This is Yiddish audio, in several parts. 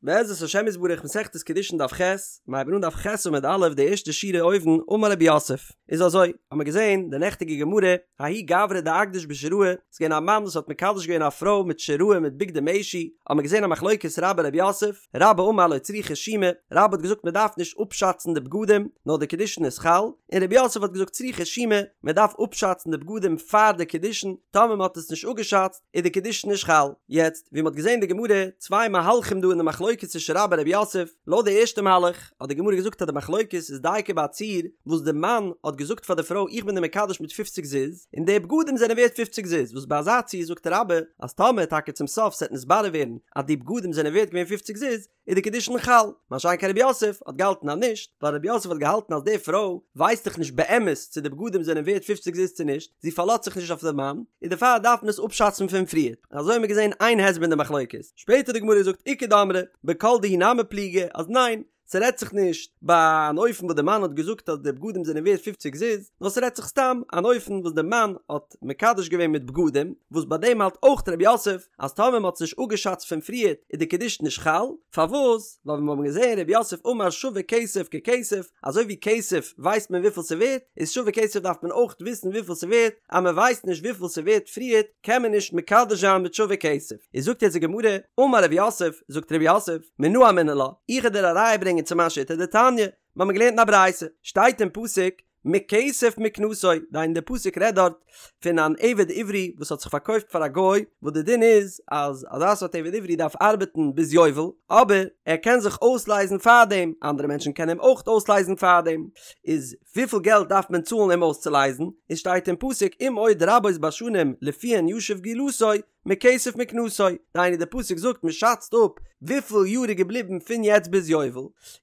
בעזרת השם יתברך מסכת קידושין דף ח', מיר הייבן אן דף ח' עמוד א' די ערשטע שורה אויבן, אמר רב יוסף, איז אזוי, האמיר געזען די נעכטיגע גמרא, ההוא גברא דאקדיש בשיראי, ס'איז געווען א מאן וואס האט מקדש געווען א פרוי מיט שיראי מיט בגדי משי, האמיר געזען א מחלוקת רבה רב יוסף, רבה אמר לא צריכא שומא, רבה האט געזאגט מען דארף נישט אפשאצן די בגדים, נאר די קידושין איז חל, און רב יוסף האט געזאגט צריכא שומא, מען דארף אפשאצן די בגדים פאר די קידושין, טאמער מען האט עס נישט אפגעשאצט, איז די קידושין נישט חל. יעצט, ווי מ'האט געזען אין די גמרא, צוויי מהלכים דא אין די מחלוקת צווישן רבה רב יוסף, לויט די ערשטע מהלך, האט די גמרא געזאגט אז די מחלוקת איז דייקא ביי א ציור וואס די מאן האט געזאגט פאר די פרוי איך בין דיר מקדש מיט פופציג זוז, און די בגדים זענען ווערט פופציג זוז, וואס ביי אזא ציור זאגט רבה אז טאמער טאקע צום סוף ס'עט נתברר ווערן אז די בגדים זענען ווערט געווען פופציג זוז, איז די קידושין חל, מה שאין כן רב יוסף האט געהאלטן אז נישט, ווייל רב יוסף האט געהאלטן אז די פרוי ווייסט דאך נישט באמת צו די בגדים זענען ווערט פופציג זוז צו נישט, זי פארלאזט זיך נישט אויף די מאן, און דערפאר דארף מען עס אפשאצן פון פריער. אזוי האבן מיר געזען איין הסבר אין די מחלוקת. שפעטער האט די גמרא געזאגט איכא דאמרי בכל דהו נמי פליגי אז ניין, ס'רעדט זיך נישט ביי אן אופן וואס די מאן האט געזאגט אז די בגדים זענען ווערט פופציג זוז, נאר ס'רעדט זיך סתם אן אופן וואס די מאן האט מקדש געווען מיט בגדים, וואס ביי דעם האלט אויך רב יוסף אז טאמער מ'האט עס נישט אפגעשאצט פון פריערט איז די קידושין נישט חל, פארוואס? ווייל ווי מיר האבן געזען רב יוסף אמר שווה כסף ככסף, אזוי ווי כסף ווייסט מען וויפיל ס'ווערט, איז שווה כסף דארף מען אויך וויסן וויפיל ס'ווערט, אז מ'ווייסט נישט וויפיל ס'ווערט פריערט קען מען נישט מקדש זיין מיט שווה כסף. איז זאגט יעצט די גמרא, אמר רב יוסף, זאגט רב יוסף, מנא אמינא לה, איך וועל דיר א ראיה ברענגען צו מיין שיטה דתניא, מיר האבן געלערנט אין א ברייתא, שטייט אין פסוק, מכסף מקנתו, דהיינו די פסוק רעדט דארט פון אן עבד עברי וואס האט זיך פארקויפט פאר א גוי, וואס די דין איז אז אזא סארט עבד עברי דארף ארבעטן ביז יובל, אבער ער קען זיך אויסלייזן פארדעם, אנדערע מענטשן קענען אים אויך אויסלייזן פארדעם, איז וויפיל געלט דארף מען צאלן אים אויסצולייזן, איז שטייט אין פסוק אם עוד רבות בשנים לפיהן ישיב גאולתו, מכסף מקנתו, דהיינו די פסוק זאגט מען שאצט אפ וויפיל יאר איז געבליבן פון יעצט ביז יובל,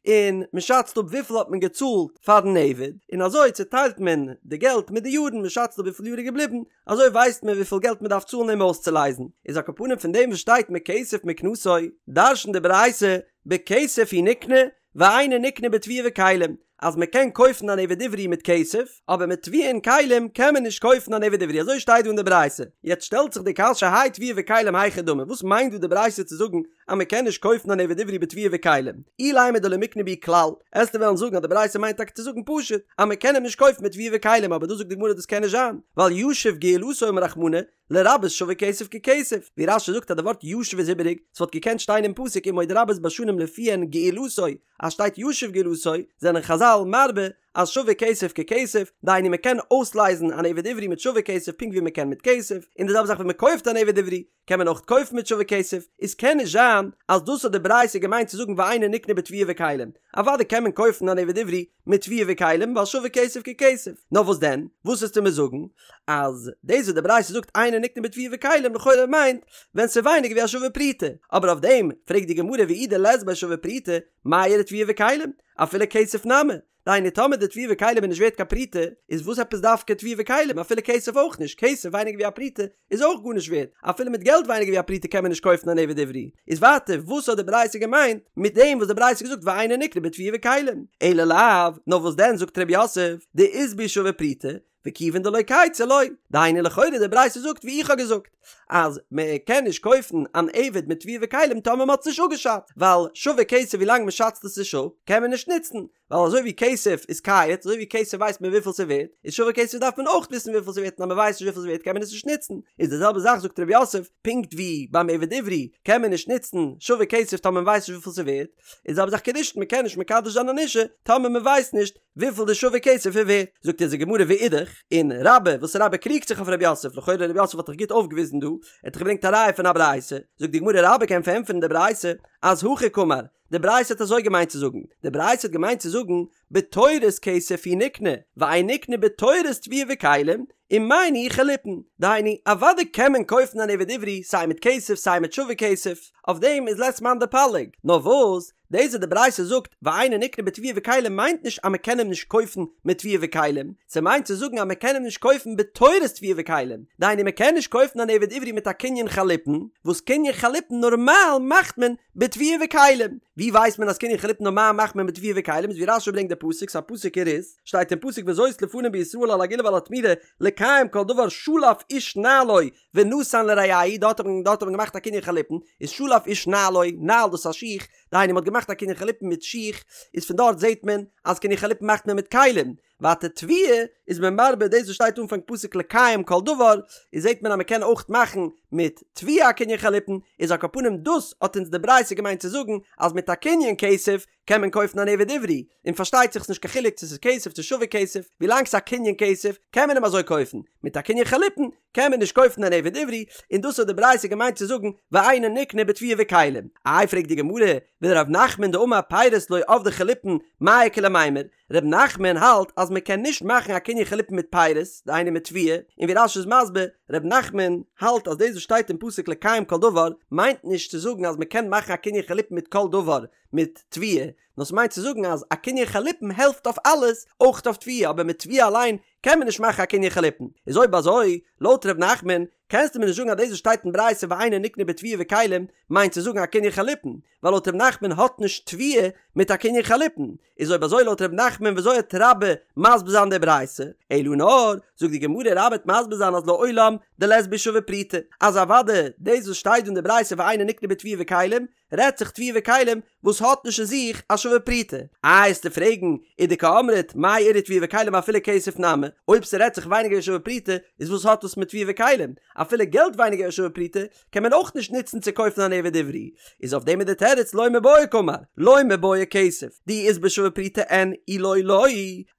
און מען שאצט אפ וויפיל האט מען געצאלט פארן עבד, און אזוי צוטיילט מען די געלט מיט די יארן, מען שאצט אפ וויפיל יאר איז געבליבן, אזוי ווייסט מען וויפיל געלט מען דארף צאלן אים אויסצולייזן, איז על כל פנים פון דעם וואס שטייט מכסף מקנתו, דרש'נט די ברייתא, בכסף הוא נקנה, ואינו נקנה בתבואה וכלים, אז מען קען קויפן אן עבד עברי מיט כסף, אבער מיט תבואה און כלים קען מען נישט קויפן אן עבד עברי, אזוי שטייט דא אין די ברייתא. יעצט שטעלט זיך די קשיא האי תבואה וכלים היכי דמי, וואס מיינט דא די ברייתא צו זאגן אז מען קען נישט קויפן אן עבד עברי בתבואה וכלים? אילימא דלא מיקני בהו כלל, עסטו וועלן זאגן אז די ברייתא מיינט טאקע צו זאגן פשוט אז מען קען אים נישט קויפן מיט תבואה וכלים, אבער דא זאגט די גמרא דאס קען נישט זיין, ווייל ישיב גאולתו אמר רחמנא, לרבות שווה כסף ככסף, ווי רש"י זאגט אז די ווארט ישיב איז איבעריג, ס'וואלט געקענט שטיין אין פסוק אם עוד רבות בשנים לפיהן גאולתו, אז שטייט ישיב גאולתו, זענען חז"ל מרבה אז שווה כסף ככסף, דהיינו מ'קען אויסלייזן אן עבד עברי מיט שווה כסף פונקט ווי מ'קען מיט כסף, און די זעלבע זאך ווען מ'קויפט אן עבד עברי, קען מען אויך קויפן מיט שווה כסף, איז קען נישט זיין אז דאס האט די ברייתא געמיינט צו זאגן ואינו נקנה בתבואה וכלים, אוודאי קען מען קויפן אן עבד עברי מיט תבואה וכלים ווייל שווה כסף ככסף, נאר וואס דען, וואס וועסטו מיר זאגן אז דאס וואס די ברייתא זאגט אינו נקנה בתבואה וכלים לכאורה מיינט ווען ס'איז ווייניגער ווי א שווה פרוטה, אבער אויף דעם פרעגט די גמרא ואי דלית ביה שווה פרוטה מאי איריא תבואה וכלים, אפילו כסף נמי, דהיינו טאמער די תבואה וכלים איז נישט ווערט קיין פרוטה, איז וואס עפעס דווקא תבואה וכלים, אפילו כסף אויך נישט, כסף ווייניגער ווי א פרוטה איז אויך גארנישט ווערט, אפילו מיט געלט ווייניגער ווי א פרוטה קען מען נישט קויפן אן עבד עברי, איז ווייטער וואס האט די ברייתא געמיינט מיט דעם וואס די ברייתא האט געזאגט ואינו נקנה בתבואה וכלים, אלא לאו, נאר וואס דען זאגט ר' יוסף, דאית בהו שווה פרוטה, וכיוון דלא כייצי לא, דהיינו לכאורה די ברייתא זאגט ווי איך האב געזאגט, אז מען קען נישט קויפן אן עבד מיט תבואה וכלים טאמער מען האט עס נישט אפגעשאצט, ווייל שווה כסף ווילאנג מען שאצט עס נישט אפ קען מען נישט נוצן, ווייל אזוי ווי כסף איז קייץ, אזוי ווי כסף ווייסט מען וויפיל ס'ווערט, איז שווה כסף דארף מען אויך וויסן וויפיל ס'ווערט און אז מ'ווייסט נישט וויפיל ס'ווערט קען מען עס נישט נוצן, איז די זעלבע זאך זאגט ר' יוסף, פונקט ווי ביים עבד עברי קען מען נישט נוצן שווה כסף טאמער מ'ווייסט נישט וויפיל ס'ווערט, איז די זעלבע זאך קידושין מ'קען נישט מקדש זיין אן אישה טאמער מ'ווייסט נישט וויפיל די שווה כסף איז ווערט. זאגט אונז די גמרא ואידך, און רבה, וואס רבה קריגט זיך אויף ר' יוסף, לכאורה ר' יוסף האט דאך גוט אויפגעוויזן דא, ער האט דאך געברענגט א ראיה פון א ברייתא, זאגט די גמרא רבה קען פארענטפערן די ברייתא אז הכי קאמר, די ברייתא האט אזוי געמיינט צו זאגן, די ברייתא האט געמיינט צו זאגן, בתורת כסף הוא נקנה, ואין נקנה בתורת תבואה וכלים, ומאי ניהו חליפין, דהיינו, אוודאי קען מען קויפן אן עבד עברי סיי מיט כסף סיי מיט שווה כסף, אויף דעם איז לית מאן דפליג, נאר וואס, דאס וואס די ברייתא זאגט ואינו נקנה בתבואה וכלים מיינט נישט אז מען קען אים נישט קויפן מיט תבואה וכלים, ס'מיינט צו זאגן אז מען קען אים נישט קויפן בתורת תבואה וכלים, דהיינו מען קען נישט קויפן אן עבד עברי מיט א קנין חליפין, וואס קנין חליפין נארמאל מאכט מען בתבואה וכלים. ווי ווייסט מען אז קנין חליפין נארמאל מאכט מען בתבואה וכלים איז ווי רש"י ברענגט די פסוק ס'א פסוק אין רות שטייט אין פסוק וזאת לפנים בישראל על הגאולה ועל התמורה לקיים כל דבר שלף איש נעלו ונתן לרעהו דארט האט מען דארט האט מען געמאכט א קנין חליפין איז שלף איש נעלו נעל דאס איז א שיך. דהיינו מ'האט געמאכט א קנין חליפין מיט שיך, איז פון דארט זעט מען אז קנין חליפין מאכט מען מיט כלים, ווייטער תבואה איז מען מרבה דאס וואס שטייט אנפאנג פסוק לקיים כל דבר, איז זעט מען אז מ'קען אויך מאכן מיט תבואה א קנין חליפין, איז על כל פנים דאס האט אונז די ברייתא געמיינט צו זאגן אז מיט א קנין כסף קען מען קויפן אן עבד עברי, און פארשטייט זיך ס'נישט קיין חילוק צו ס'איז כסף צו שווה כסף, ווילאנג ס'איז א קנין כסף קען מען אים אזוי קויפן, מיט א קנין חליפין קען מען נישט קויפן אן עבד עברי, און דאס האט די ברייתא געמיינט צו זאגן ואינו נקנה בתבואה וכלים. איי פרעגט די גמרא, ולר' נחמן דאמר פירות לא עבדי חליפין מאי איכא למימר, ר' נחמן האלט אז מען קען נישט מאכן א קנין חליפין מיט פירות, דהיינו מיט תבואה, און ווי רש"י איז מסביר, ר' נחמן האלט אז דאס וואס שטייט אין פסוק לקיים כל דבר מיינט נישט צו זאגן אז מען קען מאכן א קנין חליפין מיט כל דבר מיט תבואה, נאר ס'מיינט צו זאגן אז א קנין חליפין העלפט אויף אלעס, אויך אויף תבואה, אבער מיט תבואה אליין קען מען נישט מאכן א קנין חליפין. איז אויב אזוי, לויט ר' נחמן, קענסטו מיר נישט זאגן אז דאס וואס שטייט אין ברייתא ואינו נקנה בתבואה וכלים מיינט צו זאגן א קנין חליפין, ווייל לויט ר' נחמן האט נישט תבואה מיט א קנין חליפין. איז אויב אזוי לויט ר' נחמן וויאזוי וועט רבה מסביר זיין די ברייתא? אלא נאר, זאגט די גמרא רבה וועט מסביר זיין אז לעולם דלית בהו שווה פרוטה, אז אוודאי דאס וואס שטייט דא אין די ברייתא ואינו נקנה בתבואה וכלים רעדט זיך תבואה וכלים וואס האט נישט אין זיך א שווה פרוטה. איי וועסטו פרעגן ודקאמרת מאי איריא תבואה וכלים אפילו כסף נמי, אויב ס'רעדט זיך ווייניגער ווי שווה פרוטה איז וואס האט דאס מיט תבואה וכלים? אפילו געלט ווייניגער ווי שווה פרוטה קען מען אויך נישט נוצן צו קויפן אן עבד עברי, איז אויף דעם איז די תירוץ לא מיבעיא קאמר, לא מיבעיא כסף, דאי אית ביה שווה פרוטה אין אי לא לא,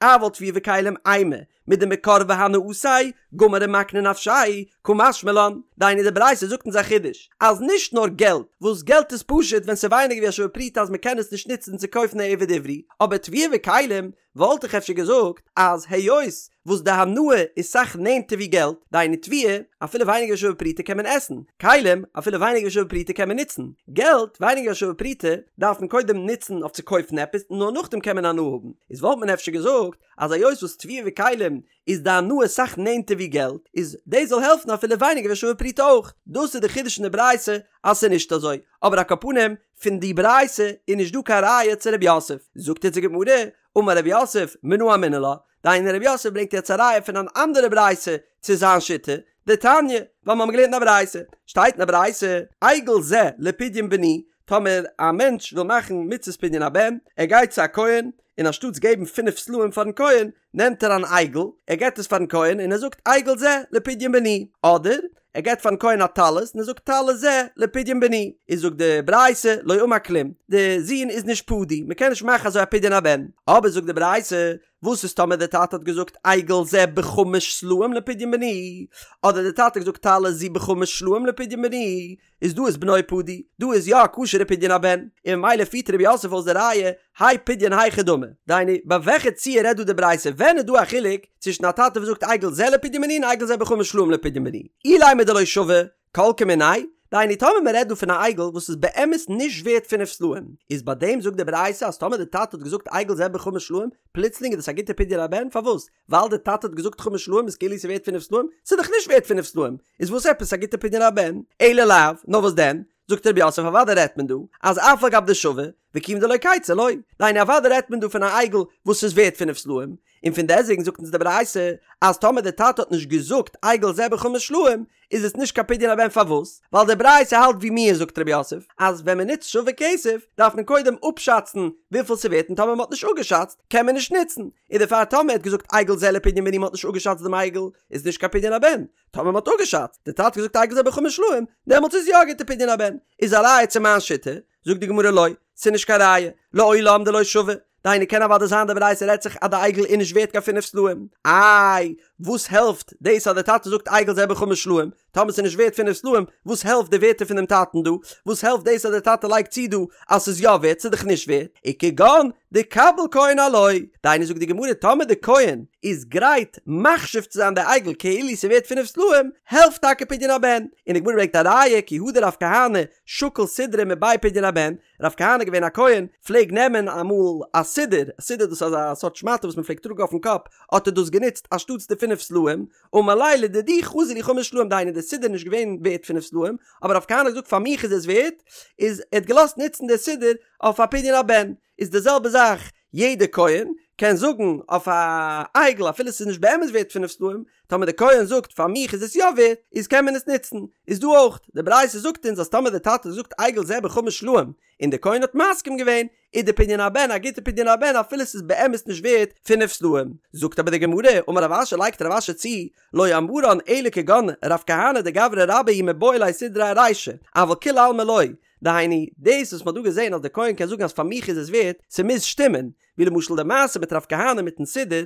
אבל תבואה וכלים אימא, מדמקרבא הנאתיה, גמר ומקני נפשיה, קא משמע לן, דהיינו די ברייתא זאגט אונז א חידוש, אז נישט נאר געלט, וואס געלט איז פשוט ווען ס'איז ווייניגער ווי א שווה פרוטה אז מ'קען עס נישט נוצן צו קויפן א עבד עברי, אבער תבואה וכלים וואלט איך אפשר געזאגט אז היות וואס די הנאה איז סאך נענטער ווי געלט, דהיינו תבואה, אפילו ווייניגער ווי שווה פרוטה קען מען עסן, כלים, אפילו ווייניגער ווי שווה פרוטה קען מען נוצן, געלט, ווייניגער ווי שווה פרוטה, דארף מען קודם נוצן אויף צו קויפן עפעס און נאר נאכדעם קען מען הנאה האבן, איז וואלט מען אפשר געזאגט אז היות וואס תבואה וכלים איז די הנאה סאך נענטער ווי געלט, איז דאס זאל העלפן אפילו ווייניגער ווי שווה פרוטה אויך. דאס איז די חידוש אין די ברייתא אז ס'איז נישט אזוי, אבער על כל פנים פון די ברייתא איז נישט דא קיין ראיה צו רב יוסף. זאגט אונז די גמרא, אמר רב יוסף, מנא אמינא לה, דהיינו רב יוסף ברענגט יעצט א ראיה פון אן אנדערע ברייתא צו זיין שיטה, דתניא, ווייל מיר האבן געלערנט אין א ברייתא, שטייט אין א ברייתא, עגל זה לפדיון בני, טאמער א מענטש וויל מאכן מצות פדיון הבן, ער גייט צו א כהן, און אנשטאטס געבן פינף סלעים פארן כהן, נעמט ער אן עגל, ער געבט עס פארן כהן און ער זאגט עגל זה לפדיון בני, אדער ער געבט פארן כהן א טלית און ער זאגט טלית זה לפדיון בני, איז זאגט די ברייתא לא אמר כלום, די זון איז נישט פדוי, מען קען נישט מאכן אזוי א פדיון הבן, אבער זאגט די ברייתא, וואס איז טאמער די טאטע האט געזאגט עגל זה בחמש סלעים לפדיון בני, אדער די טאטע האט געזאגט טלית זו בחמש סלעים לפדיון בני, איז דא איז בנו פדוי, דא איז יא א כשר'ע פדיון הבן, און ממילא פירט רב יוסף אויס די ראיה, האי פדיון היכי דמי, דהיינו, ביי וועלכע ציור רעדט דא די ברייתא, ווען איז דא א חילוק צווישן א טאטע וואס זאגט עגל זה לפדיון בני און עגל זה בחמש סלעים לפדיון בני, אילימא דלא שוי, כל כמיניה, דהיינו טאמער מען רעדט דא פון א עגל וואס איז באמת נישט ווערט פינף סלעים, איז ביי דעם זאגט די ברייתא אז טאמער די טאטע האט געזאגט עגל זה בחמש סלעים, פלוצלינג איז דאס א גוטע פדיון הבן, פארוואס? ווייל די טאטע האט געזאגט חמש סלעים איז כאילו ס'איז ווערט פינף סלעים? ס'איז דאך נישט ווערט פינף סלעים, איז וואס עפעס א גוטע פדיון הבן? אלא לאו, נאר וואס דען? זאגט רב יוסף אוודאי רעדט מען דא אז אף על גב דשוי, וכיוון דלא קייצי לא, דהיינו אוודאי רעדט מען דא פון א עגל וואס איז ווערט פינף סלעים, און פון דעסוועגן זאגט אונז די ברייתא אז טאמער די טאטע האט נישט געזאגט עגל זה בחמש סלעים איז עס נישט קיין פדיון הבן פארוואס? ווייל די ברייתא האלט ווי מיר זאגט רב יוסף אז ווען מען נוצט שווה כסף דארף מען קודם אפשאצן וויפיל ס'ווערט און טאמער מ'האט נישט אפגעשאצט קען מען נישט נוצן און דערפאר טאמער ער האט געזאגט עגל זה לפדיון בני מ'האט נישט אפגעשאצט דעם עגל איז נישט קיין פדיון הבן טאמער מ'האט אפגעשאצט די טאטע האט געזאגט עגל זה בחמש סלעים דעמאלטס איז יא א גוטע פדיון הבן איז א ראיה צו מיין שיטה זאגט די גמרא לא ס'איז נישט קיין ראיה לעולם דלא שוי דהיינו קען אוודאי זיין די ברייתא רעדט זיך אז די עגל איז נישט ווערט קיין פינף סלעים, איי וואס העלפט דאס אז די טאטע זאגט עגל זה בחמש סלעים, טאמער ס'איז נישט ווערט פינף סלעים, וואס העלפט די ווערטער פונעם טאטן דא, וואס העלפט דאס אז די טאטע לייגט צו דא אז ס'איז יא ווערט, ס'איז דאך נישט ווערט, וכגון דקביל כהן עילויה, דהיינו זאגט די גמרא טאמער די כהן איז גרייט מחשיב צו זיין די עגל כאילו ס'איז ווערט פינף סלעים, העלפט טאקע פדיון הבן, און די גמרא ברענגט א ראיה כי הא דרב כהנא שקיל סודרא מבי פדיון הבן, רב כהנא געווען א כהן, פלעג נעמען אמאל א סודר, א סודר דאס איז אזא סארט שמאטע וואס מען פלעגט טראגן אויפן קאפ, האט ער דאס גענוצט אנשטאטס די פינף סלעים, אמר ליה לדידי חזי לי חמש סלעים דהיינו די סודר איז נישט געווען ווערט פינף סלעים, אבער רב כהנא האט געזאגט פאר מיך איז עס ווערט, איז ער האט געלאזט נוצן די סודר אויף א פדיון הבן, איז די זעלבע זאך יעדע כהן. קען זאגן אויף א עגל אפילו ס'איז נישט באמת ווערט פינף סלעים, טאמער די כהן זאגט פאר מיך איז עס יא ווערט, איז קען מען עס נוצן. איז דא אויך, די ברייתא זאגט אונז אז טאמער די טאטע האט געזאגט עגל זה בחמש סלעים, און די כהן האט מסכים געווען, איז די פדיון הבן א גוטע פדיון הבן אפילו ס'איז באמת נישט ווערט פינף סלעים. זאגט אבער די גמרא, אמר רב אשי לייגט רב אשי צו, לא אמרן אלא כגון רב כהנא דגברא רבה הוא מיבעי ליה סידרא ארישא, אבל כולי עלמא לא, דהיינו, דאס וואס מ'האט דא געזען אז די כהן קען זאגן אז פאר מיך איז עס ווערט, ס'מוז שטימען, ווי למשל די מעשה מיט רב כהנא מיטן סידור,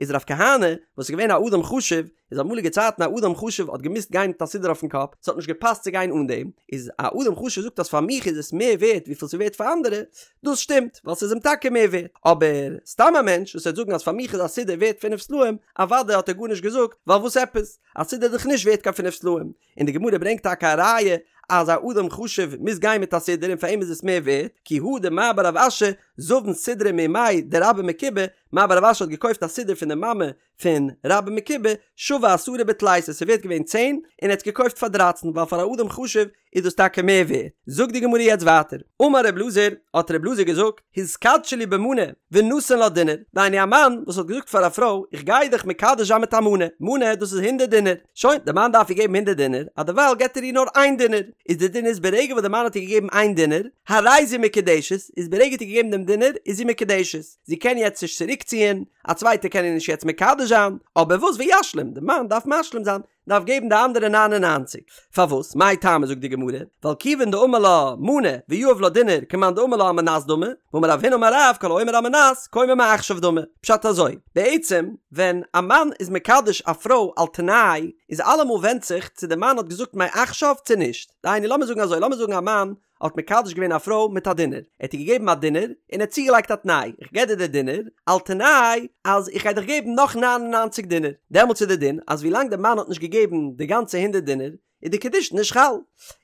איז רב כהנא, וואס איז געווען א אדם חשוב, איז אמאליגע צייטן א אדם חשוב האט געמוזט גיין מיט א סידור אויפן קאפ, ס'האט נישט געפאסט צו גיין אן דעם, איז א אדם חשוב זאגט אז פאר מיך איז עס מער ווערט וויפיל ס'איז ווערט פאר אנדערע, דאס שטימט, ווייל ס'איז אים טאקע מער ווערט, אבער סתם א מענטש וואס וועט זאגן אז פאר מיך איז א סידור ווערט פינף סלעים, אוודאי האט ער גארנישט געזאגט, ווייל וואס עפעס? א סידור איז דאך נישט ווערט קיין פינף סלעים, און די גמרא ברענגט טאקע א ראיה אז א אדם חשוב מוז גיין מיט א סידור און פאר אים איז עס מער ווערט, כי הא דמר בר רב אשי זבן סידרא מאימיה דרבה מקובי, מר בר רב אשי האט געקויפט א סידור פון די מאמע פון רבה מקובי, שוי עשרה בתליסר, ס'איז ווערט געווען צען, און ער האט עס געקויפט פאר דרייצן, ווייל פאר א אדם חשוב איז דאס טאקע מער ווערט. זאגט די גמרא יעצט ווייטער, אמר ר' אלעזר, האט ר' אלעזר געזאגט, התקדשי לי במנה, ונתן לה דינר, דהיינו א מאן וואס האט געזאגט פאר א פרוי, איך גיי דיך מקדש זיין מיט א מנה, מנה דאס איז הונדערט דינר, שוין, די מאן דארף איר געבן הונדערט דינר, אז דערווייל געבט ער איר נאר איין דינר, איז די דין איז ברגע וואס די מאן האט איר געגעבן איין דינר, הרי זו מקודשת, איז ברגע האט איר געגעבן דעם דינר, איז זי מקודשת, זי קען יעצט נישט צוריקציען, א צווייטער קען איר נישט יעצט מקדש זיין, אבער וואס וישלים, די מאן דארף משלים זיין, דארף געבן די אנדערע ניין און ניינציג. פארוואס? מאי טעמא זאגט די גמרא, ווייל כיוון דאמר לה מנה ויהב לה דינר כמאן דאמר לה על מנת דמי, ואמר רב הונא אמר רב כל האומר על מנת כאומר מעכשיו דמי. פשט אזוי, בעצם ווען א מאן איז מקדש א פרוי על תנאי, איז אלעמאל ווענדט זיך צו די מאן האט געזאגט מעכשיו צו נישט. דהיינו לאמיר זאגן אזוי, לאמיר זאגן א מאן האט מקדש געווען א פרוי מיט א דינר, ער האט איר געגעבן א דינר, און ער האט צוגעלייגט א תנאי, איך געב דיר די דינר, על תנאי אז איך גיי דיך געבן נאך ניין און ניינציג דינר, דעמאלטס איז די דין אז ווילאנג די מאן האט נישט געגעבן די גאנצע הונדערט דינר, איז די קידושין נישט חל.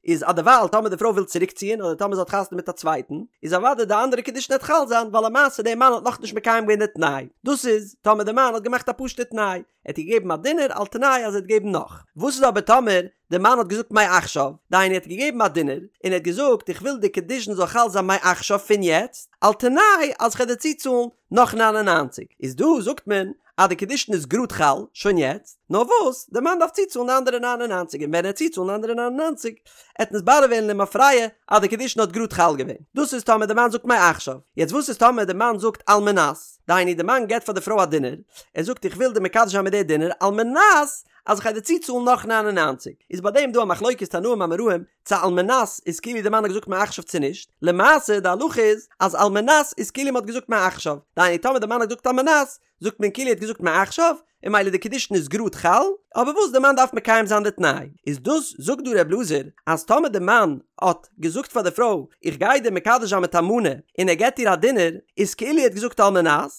איז אדערווייל טאמער די פרוי וויל צוריקציען אדער טאמער זי האט חתונה מיט א צווייטן, איז אוודאי די אנדערע קידושין וועט חל זיין, ווייל למעשה די מאן האט נאכנישט מקיים געווען די תנאי. דאס איז טאמער די מאן האט געמאכט א פשוטע תנאי, ער האט איר געגעבן א דינר על תנאי אז ער וועט געבן נאך. וואס איז אבער טאמער די מאן האט געזאגט מעכשיו, דהיינו ער האט געגעבן א דינר, און ער האט געזאגט איך וויל די קידושין זאל חל זיין מעכשיו פון יעצט, על תנאי אז כ'וועל דיר צוצאלן נאך ניין און ניינציג, איז דא זאגט מען אז די קידושין איז גראד חל שוין יעצט, נאר וואס די מאן דארף צוצאלן די אנדערע ניין און ניינציג און ווען ער וועט צוצאלן די אנדערע ניין און ניינציג עט נתברר ווערן למפרע אז די קידושין האט גראד חל געווען. דאס איז טאמער די מאן זאגט מעכשיו. יעצט וואס איז טאמער די מאן זאגט על מנת, דהיינו די מאן געבט פאר די פרוי א דינר, ער זאגט איך וויל דיר מקדש זיין מיט די דינר על מנת אז איך גיי דיר צוצאלן נאך ניין און ניינציג, איז ביי דעם דא א מחלוקת תנאים אמוראים צו על מנת איז כאילו די מאן האט געזאגט מעכשיו צו נישט, למעשה די הלכה איז אז על מנת איז כאילו מען האט געזאגט מעכשיו, דהיינו טאמער די מאן האט געזאגט על מנת זאגט מען כאילו ער האט געזאגט מעכשיו, און ממילא די קידושין איז גראד חל, אבער וואס די מאן דארף מקיים זיין די תנאי, איז דאס זאגט דא ר' אלעזר אז טאמער די מאן האט געזאגט פאר די פרוי איך גיי דיר מקדש זיין מיט א מנה און ער געבט איר א דינר, איז כאילו ער האט געזאגט על מנת,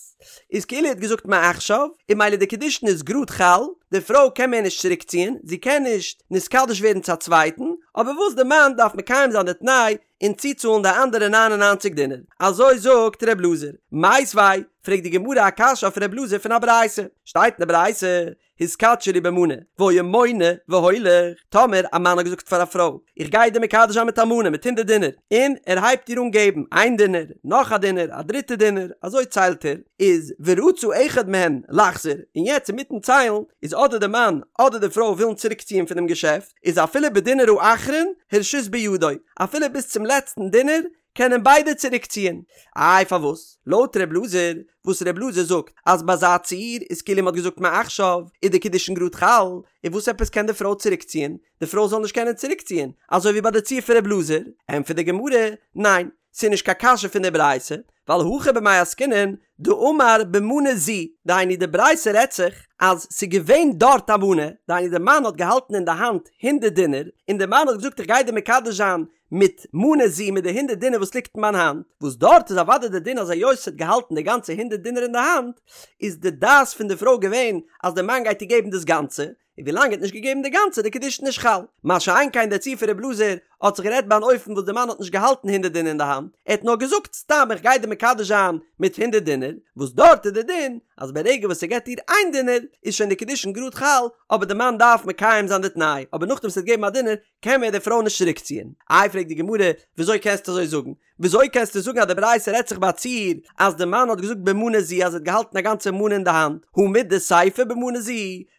איז כאילו ער האט געזאגט מעכשיו, און ממילא די קידושין איז גראד חל, די פרוי קען מער נישט צוריק ציען, זי קען נישט נתקדש ווערן צו א צווייטן, אבער וואס די מאן דארף מקיים זיין די תנאי און צוצאלן די אנדערע ניין און ניינציג דינר. אזוי זאגט ר' אלעזר. מיתיבי, פרעגט די גמרא א קשיא אויף ר' אלעזר פון א ברייתא. שטייט אין די ברייתא, התקדשי לי במנה, והיה מונה והולך, טאמער א מאן האט געזאגט פאר א פרוי, איך גיי דיר מקדש זיין מיט א מנה, מיט הונדערט דינר, און ער הייבט איר אן געבן, איין דינר, נאך א דינר, א דריטע דינר, אזוי ציילט ער, איז ורצה אחד מהן לחזור, און יעצט אינמיטן ציילן, איז אדער די מאן אדער די פרוי ווילן צוריקציען פונעם געשעפט, איז אפילו בדינר האחרון הרשות בידו, אפילו ביז צום לעצטן דינר קענען ביידע צוריקציען. איי פארוואס? לויט ר' אלעזר, וואס ר' אלעזר זאגט אז ביי אזא ציור איז כאילו מ'האט געזאגט מעכשיו איז די קידושין גראד חל, און וואס עפעס קען די פרוי צוריקציען? די פרוי זאל נישט קענען צוריקציען, אזוי ווי ביי די ציור פון ר' אלעזר? ענטפערט די גמרא, ניין, ס'איז נישט קיין קשיא פון די ברייתא, ווייל הכא במאי עסקינן דאמר במנה זו, דהיינו די ברייתא רעדט זיך אז ס'איז געווען דארט א מנה, דהיינו די מאן האט געהאלטן אין די האנט הונדערט דינר, און די מאן האט געזאגט איך גיי דיר מקדש זיין מיט מנה זו מיט די הונדערט דינר וואס ליגט אין מיין האנט, וואס דארט איז אוודאי די דין אז היות ס'האט געהאלטן די גאנצע הונדערט דינר אין די האנט, איז די דעת פון די פרוי געווען אז די מאן גייט איר געבן דאס גאנצע, און ווילאנג ער האט נישט געגעבן די גאנצע די קידושין נישט חל. מה שאין כן די ציור פון ר' אלעזר. האט זיך גערעדט ביי אן אופן וואס די מאן האט נישט געהאלטן הונדערט דינר אין די האנט, ער האט נאר געזאגט סתם איך גיי דיר מקדש זיין מיט הונדערט דינר, וואס דארט איז די דין אז ברגע וואס ער געבט איר איין דינר איז שוין די קידושין גראד חל, אבער די מאן דארף מקיים זיין די תנאי, אבער נאכדעם וואס ער האט געגעבן א דינר קען מער די פרוי נישט צוריקציען. איי פרעגט די גמרא וויאזוי קענסטו אזוי זאגן? וויאזוי קענסטו זאגן אז די ברייתא רעדט זיך ביי א ציור אז די מאן האט געזאגט במנה זו אז ער האט געהאלטן א גאנצע מנה אין די האנט, הא מדסיפא במנה זו,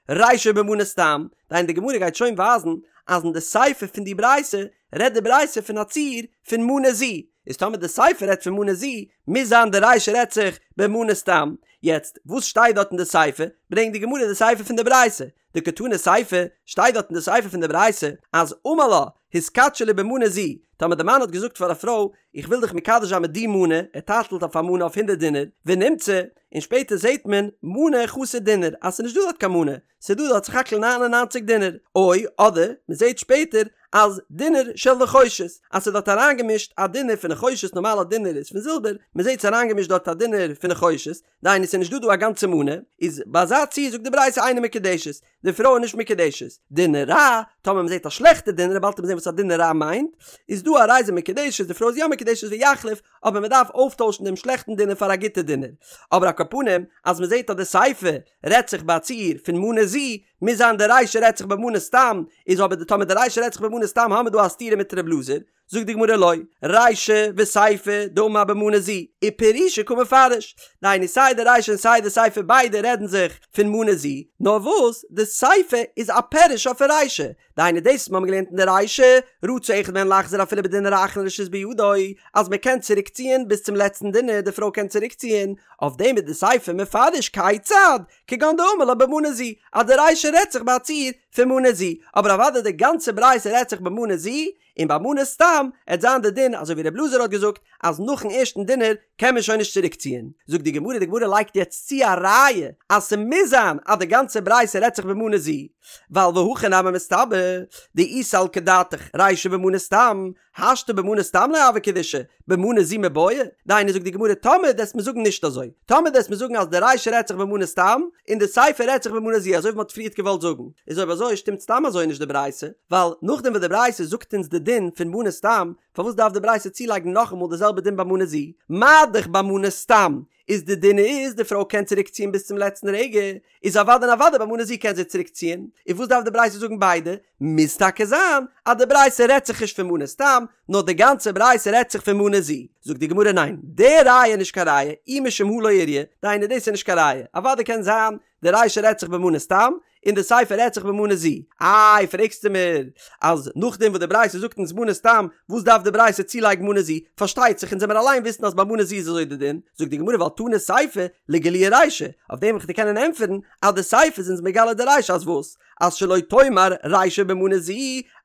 רישא במנה סתם, דהיינו די גמרא גייט שוין ווייזן אז אין די סיפא פון די ברייתא רעדט די ברייתא פון א ציור פון מנה זו, איז טאמער די סיפא רעדט פון מנה זו מוז זיין די רישא רעדט זיך במנה סתם, יעצט וואס שטייט דארט אין די סיפא? ברענגט די גמרא די סיפא פון די ברייתא, דקתני סיפא, שטייט דארט אין די סיפא פון די ברייתא אז אמר לה התקדשי לי במנה זו, טאמער די מאן האט געזאגט פאר א פרוי איך וויל דיך מקדש זיין מיט די מנה, ער טייטלט אויף א מנה אויף הונדערט דינר, ונמצא, און שפעטער זעט מען מנה חסר דינר אז ס'איז נישט דא דארט קיין מנה, ס'איז דא דארט סך הכל 99 דינר, או אדער מ'זעט שפעטער אז דינר של נחושת, אז ס'איז דארט אריינגעמישט א דינר פון נחושת, נארמאל א דינר איז פון זילבער, מ'זעט ס'איז אריינגעמישט דארט א דינר פון נחושת, דהיינו ס'איז נישט דא דא א גאנצע מנה, איז ביי אזא ציור זאגט די ברייתא אינה מקודשת, די פרוי איז נישט מקודשת, דינר רע, טאמער מ'זעט א שלעכטע דינר, באלד וועט מען זען וואס א דינר רע מיינט, איז דא הרי זו מקודשת, די פרוי איז יא מקודשת ויחליף, אבער מ'דארף אויפטוישן דעם שלעכטן דינר פאר א גוטע דינר. אבער על כל פנים, אז מ'זעט אז די סיפא רעדט זיך ביי א ציור פון מנה זו, מוז זיין די רישא רעדט זיך במנה סתם, איז אבער די טאמער די רישא רעדט זיך במנה סתם האמיר דא א סתירה מיט ר' אלעזר, זאגט די גמרא לא, רישא וסיפא דאמר במנה זו, ופרושי קא מפרש, דהיינו סיי די רישא און סיי די סיפא ביידע רעדן זיך פון מנה זו, נאר וואס די סיפא איז א פירוש אויפן רישא, דהיינו דאס וואס מיר האבן געלערנט אין די רישא, רצה אחד מהן לחזור אפילו בדינר האחרון רשות בידו, אז מען קען צוריק ציען ביז צום לעצטן דינר, די פרוי קען צוריק ציען, אויף דעם איז די סיפא מפרש כיצד, כגון דאמר לה במנה זו, אז די רישא רעדט זיך ביי א ציור פון מנה זו, אבער אוודאי די גאנצע ברייתא רעדט זיך במנה זו, און ביי מנה סתם עט זיין די דין אזוי ווי ר' אלעזר האט געזאגט אז נאכן ערשטן דינר קען מען שוין נישט צוריק ציען. זאגט די גמרא, די גמרא לייגט יעצט צו א ראיה אז ס'מוז זיין אז די גאנצע ברייתא רעדט זיך במנה זו, ווייל והכי נמי מסתברא דאי סלקא דעתך רישא במנה סתם, השתא במנה סתם לא הוו קידושי, במנה זו מיבעיא, דהיינו זאגט די גמרא טאמער דו עסט מיר זאגן נישט אזוי, טאמער דו עסט מיר זאגן אז די רישא רעדט זיך במנה סתם, און די סיפא רעדט זיך במנה זו אזוי ווי מ'האט פריערט געוואלט זאגן, איז אויב אזוי שטימט סתם אזוי נישט די ברייתא, ווייל נאכדעם וואס די ברייתא זאגט אונז די דין פון מנה סתם, פארוואס דארף די ברייתא צולייגן נאכאמאל די זעלבע דין ביי מנה זו? מה דאך ביי מנה סתם איז די דין איז די פרוי קען צוריק ציען ביז צום לעצטן רגע, איז אוודאי און אוודאי ביי מנה זו קען זי צוריק ציען, איז וואס דארף די ברייתא זאגן ביידע? מוז טאקע זיין אז די ברייתא רעדט זיך נישט פון מנה סתם, נאר די גאנצע ברייתא רעדט זיך פון מנה זו. זאגט די גמרא ניין, די ראיה איז נישט קיין ראיה, אי משום הא לא איריא, דהיינו דאס איז נישט קיין ראיה, אוודאי קען זיין די רישא רעדט זיך במנה סתם, און די סיפא רעדט זיך במנה זו. איי פרעגסטו מיר אז נאכדעם וואס די ברייתא זאגט אונז מנה סתם, וואס דארף די ברייתא צולייגן מנה זו? פארשטייט זיך אונז זעמיר אליין וויסן אז ביי מנה זו איז אזוי די דין. זאגט די גמרא ווייל תנא סיפא לגלויי רישא, אויף דעם וועל איך דיר קענען ענטפערן אז די סיפא איז אונז מגלה די רישא אז וואס? אז שלא תאמר רישא במנה זו,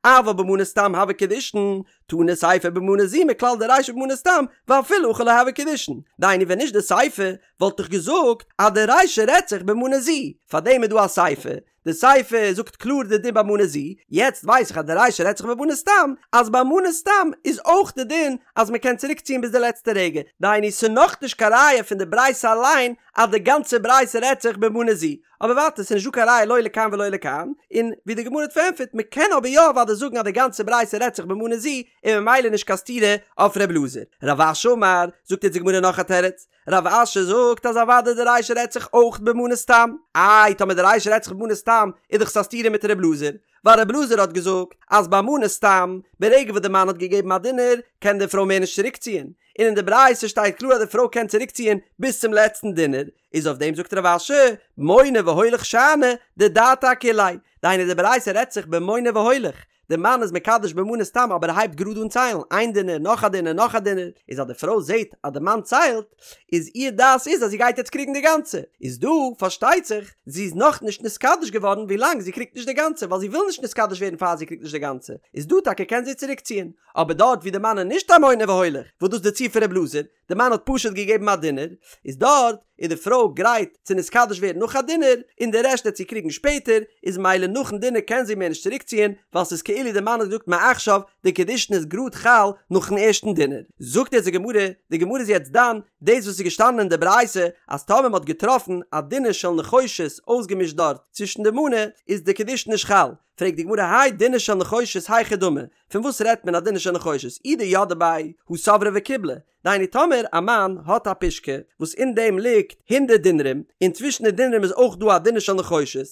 אבל במנה סתם הוו קידושין, תנא סיפא במנה זו מכלל דרישא במנה סתם, ואפילו הכי לא הוו קידושין. דהיינו ווען נישט די סיפא וואלט איך געזאגט אז די רישא רעדט זיך במנה זו, פארדעם איז דא א סיפא, די סיפא זאגט קלאר די דין ביי מנה זו, יעצט ווייס איך אז די רישא רעדט זיך במנה סתם, אז ביי מנה סתם איז אויך די דין אז מען קען צוריק ציען ביז די לעצטע רגע, דהיינו ס'נאך נישט קיין ראיה פון די ברייתא אליין אז די גאנצע ברייתא רעדט זיך במנה זו, אבער ווייטער ס'איז נישט דא קיין ראיה לא לכאן ולא לכאן, און ווי די גמרא האט פארענטפערט מ'קען אבער יא אוודאי זאגן אז די גאנצע ברייתא רעדט זיך במנה זו, און ממילא נישט קיין סתירה אויף ר' אלעזר. רב אשי אמר, זאגט יעצט די גמרא נאך א תירוץ, רב אשי זאגט אז אוודאי די רישא רעדט זיך אויך במנה סתם, איי טאמער די רישא רעדט זיך במנה סתם איז דאך עס א סתירה מיט ר' אלעזר, ווייל ר' אלעזר האט געזאגט אז ביי מנה סתם, ברגע וואס די מאן האט געגעבן א דינר, קען די פרוי מער נישט צוריקציען, און אין די ברייתא שטייט קלאר אז די פרוי קען צוריקציען ביז צום לעצטן דינר, איז אויף דעם זאגט רב אשי, מונה והולך שאני, דדעתה אכוליה, דהיינו די ברייתא רעדט זיך במונה והולך, די מאן איז מקדש במנה סתם אבער ער הייבט גראד אן ציילן, איין דינר, נאך א דינר, נאך א דינר, איז אז די פרוי זעט אז די מאן ציילט, איז איר דעת איז אז זי גייט יעצט קריגן די גאנצע, איז דא פארשטייט זיך זי איז נאך נישט נתקדש געווארן ווילאנג זי קריגט נישט די גאנצע ווייל זי וויל נישט נתקדש ווערן פאר זי קריגט נישט די גאנצע, איז דא טאקע קען זי צוריק ציען, אבער דארט ווי די מאן איז נישט א מונה והולך, וואס דאס איז די ציור פון ר' אלעזר, די מאן האט פשוט געגעבן א דינר, איז דארט איז די פרוי גרייט צו נתקדש ווערן נאך א דינר, און די רעשט וועט זי קריגן שפעטער, איז ממילא נאכן דינר קען זי מער נישט צוריקציען, ווייל ס'איז כאילו די מאן האט געזאגט מעכשיו, די קידושין איז גראד חל נאכן ערשטן דינר. זאגט יעצט די גמרא, די גמרא איז יעצט דן דאס וואס איז געשטאנען אין די ברייתא, אז טאמער מ'האט געטראפן א דינר של נחושת אויסגעמישט דארט צווישן די מנה, איז די קידושין נישט חל. פרעגט די גמרא האי דינר של נחושת היכי דמי, פון וואס רעדט מען א דינר של נחושת, אי דידעה ביה הא סברה וקיבלה, דהיינו טאמער א מאן האט א פושקע וואס אין דעם ליגט הונדערט דינרים, און צווישן די דינרים איז אויך דא א דינר של נחושת,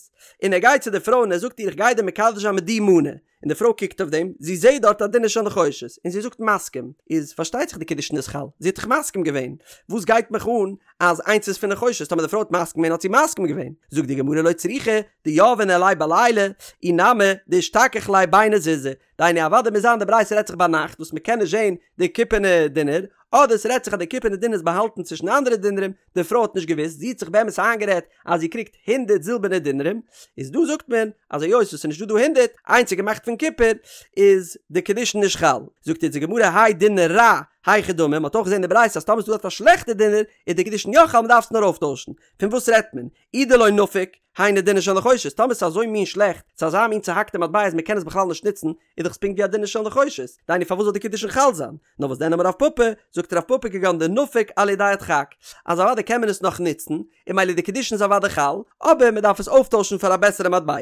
און ער גייט צו די פרוי און ער זאגט איר איך גיי דיר מקדש זיין מיט די מנה, און די פרוי קוקט אויף דעם, זי זעט דארט א דינר של נחושת, און זי זאגט מסכים, איז פארשטייט זיך די קידושין איז חל, זי האט דאך מסכים געווען, וואס גייט מיך אן אז איינס איז פון נחושת, טאמער די פרוי האט מסכים געווען האט זי מסכים געווען, זאגט די גמרא לא צריכא דיהביה ניהליה בליליא, אי נמי דאשתכח ליה ביני זוזי, דהיינו אוודאי מוז זיין די ברייתא רעדט זיך ביינאכט וואס מ'קען נישט זען די קופערנע דינר, אדער ס'רעדט זיך אז די קופערנע דינר איז באהאלטן צווישן אנדערע דינרים, די פרוי האט נישט געוואוסט, זי האט זיך באמת איינגערעדט אז זי קריגט הונדערט זילבערנע דינרים, איז דא זאגט מען אז היות עס איז נישט דא דא הונדערט, איינס איז געמאכט פון קופער, איז די קידושין נישט חל. זאגט אונז די גמרא האי דינר רע, היכי דמי, מ'האט אויך געזען אין די ברייתא אז טאמער איז דא דארט א שלעכטע דינר, איז די קידושין יא חל מ'דארף עס נאר אויפטוישן. פון וואס רעדט מען? אי דלא נפיק, היינו דינר של נחושת, טאמער ס'איז אזוי מין שלעכט, ס'איז אזא מין צוהאקטע מטבע אז מ'קען עס בכלל נישט נוצן, איז דאך עס פונקט ווי א דינר של נחושת, דהיינו פארוואס זאל די קידושין חל זיין? נאר וואס דען אמר רב פפא, זאגט רב פפא כגון דנפיק על ידי הדחק, אז אוודאי קען מען עס נאך נוצן, און ממילא די קידושין איז אוודאי חל, אבער מ'דארף עס אויפטוישן פאר א בעסערע מטבע.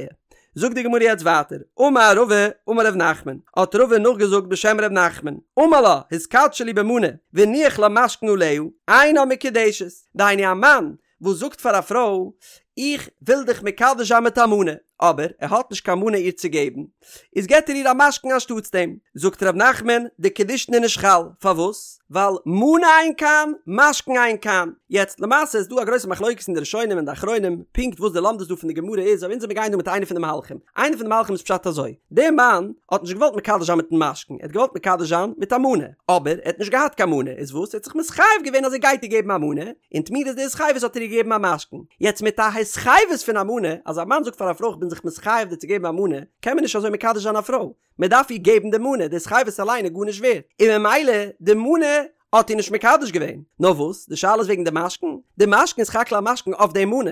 זאגט די גמרא יעצט ווייטער, אמר רבא אמר ר' נחמן, האט רבא נאכגעזאגט בשם ר' נחמן, אמר לה התקדשי לי במנה, והניח לה משכון עליה, אינה מקודשת, דהיינו א מאן וואס זאגט פאר א פרוי איך וויל דיך מקדש זיין מיט א מנה, אבער ער האט נישט קיין מנה איר צו געבן, איז געבט ער איר א משכון אנשטאטס דעם. זאגט ר' נחמן, די קידושין איז נישט חל, פארוואס? ווייל מנה אין כאן, משכון אין כאן. יעצט, למעשה איז דא א גרויסע מחלוקת אין די ראשונים און די אחרונים, פונקט וואס די לומדות דא פון די גמרא איז, אבער אונז מיר גייען דא מיט איינע פון די מהלכים. איינע פון די מהלכים איז פשט אזוי, דער מאן האט נישט געוואלט מקדש זיין מיטן משכון, ער האט געוואלט מקדש זיין מיט א מנה, אבער ער האט נישט געהאט קיין מנה, איז וואס? ער האט זיך מתחייב געווען אז ער גייט איר געבן א מנה, און תמורת די התחייבות האט ער איר געגעבן א משכון. יעצט מיט א התחייבות פון א מנה, אז א מאן זאגט פאר א פרוי איך בין זיך מתחייב דיר צו געבן א מנה, קען מען נישט אזוי מקדש זיין א פרוי, מען דארף איר געבן די מנה, די התחייבות אליין איז גארנישט ווערט, און ממילא די מנה האט איר נישט מקדש געווען. נאר וואס, די שאלה איז וועגן די משכון, די משכון איז סך הכל א משכון אויף די מנה,